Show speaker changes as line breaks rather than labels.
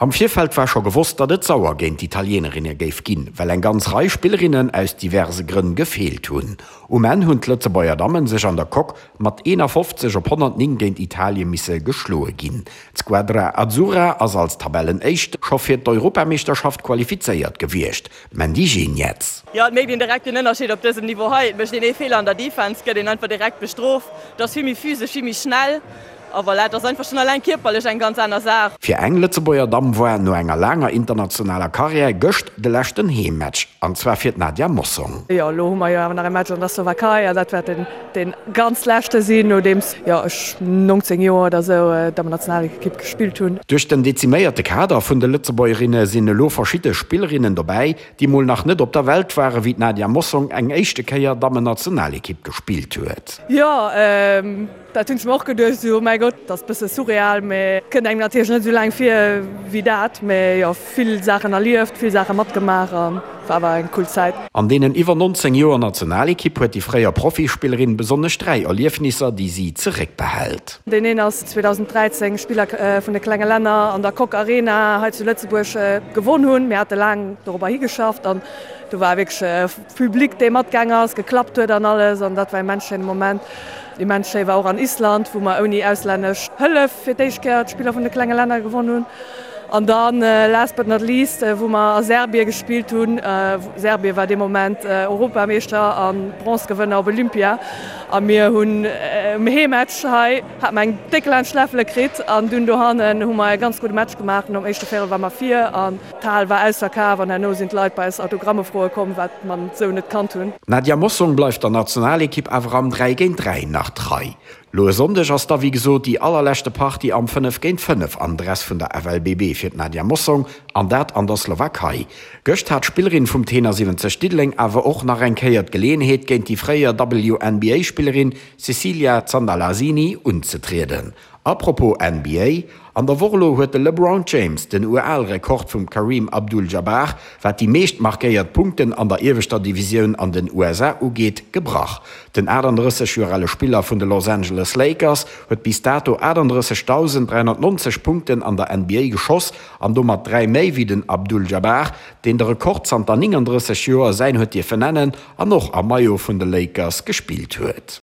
Am Virfeld war scho gewosst, datt et sauer géint d'Italienerinne géif ginn, well eng ganz Rei Spillerinnen aus diverse Grënn gefeelt hunn. Um Enn hunn d'Lëtzebuerger Dammen sech an der Coque mat 51 op 109 géint Italie misse geschloe ginn. D'Squadra Azzurra ass als Tabellenéischt scho fir d'Europameeschterschaft qualifizéiert gewiescht. Mandy Geniets.
Jo, et mécht een direkt den Ënnerscheed op dësem Niveau hei. Et mécht een ee Feeler an der Defense, gëtt een einfach direkt bestrooft. Et ass vill méi physesch, vill méi schnell. A voilà, et ass einfach schonn alleng kierperlech eng ganz aner Saach.
Fir eng Lëtzebuerger Damm war no enger laanger internationaler Karriär gëscht de leschten Heemmatch, an zwar fir d'Nadia Mossong.
Jo, elo hu mer jo awer nach e Match an der Slowakei an dat wäert den dee ganz leschte sinn, nodeems jo ech 19 Joer oder sou Dammennationalekipp gespillt hunn.
Duerch den deziméierte Kader vun de Lëtzebuergerinne sinn elo verschidde Spillerinnen dobäi, déi mol nach net op der Welt ware wéi d'Nadia Mossong eng éischte Kéier Dammennationalekipp gespillt huet.
Jo, Dat hunn ech mer och geduecht, esou, oh mäi Gott, dat ass e bësse surreal, mä kënnt engem natierlech net esou laang vir wéi dat. Mä jo, vill Saachen erlieft, vill Saache matgemaach a war awer eng cool Zäit.
An deenen iwwer 19 Joer Nationalekipp huet déi fréier Profispillerin besonnesch 3 Erliefnisser, déi si zeréckbehält.
Deen een ass 2013 Spiller vun de klenge Länner an der Coque Arena hei zu Lëtzebuerg gewonn hunn. Mir hate laang dorobber higeschafft an do war wierklech Public dee matgaang ass, geklappt huet an alles an dat war immens schéine Moment. Immens schéi war och an Island, wou mer ouni auslännesch Hëllef fir d'éischt Kéier d'Spiller vun de klenge Länner gewonn hunn. An dann last but not least, wou mer a Serbien gespillt hunn. Serbien war dee Moment Europameeschter a Bronzegewënner op Olympia a mir hunn um Heemmatch hei hat mer eng déck laanscht d'Läffele kritt an dunn dohannen hu mer e ganz gudde Match gemaach. Nom éischte Véierel war mer vir an D'Hal war ausverkaf an herno sinn d'Leit bei eis Autogramme froe komm, wat mer sou net kannt hunn.
D'Nadia Mossong bleift der Nationalekipp awer am 3 géint 3 nach trei. Lo e Sonndeg ass da wéi gesot déi allerleschte Partie am 5 géint 5 am Dress vun der FLBB fir d'Nadia Mossong an dat an der Slowakei. Gëscht hat d'Spillerin vum Tenor 70 Diddeleng awer och nach eng Kéier d'Geleeënheet géint déi fréier WNBA-Spillerin Cecilia Zandalasini unzetrieden. A propos NBA, An der Woch elo huet de LeBron James den UAL-Rekord vum Kareem Abdul-Jabbar, wat déi meescht markéiert Punkten an der ieweschter Divisioun an den USA ugeet, gebrach. Den 38 Joer ale Spiller vun de Los Angeles Lakers huet bis dato 38.390 Punkten an der NBA geschoss an domat 3 méi wéi den Abdul-Jabbar, deen de Rekord zanter 39 Joer säin huet dierfen nennen an och am Maillot vun de Lakers gespillt huet.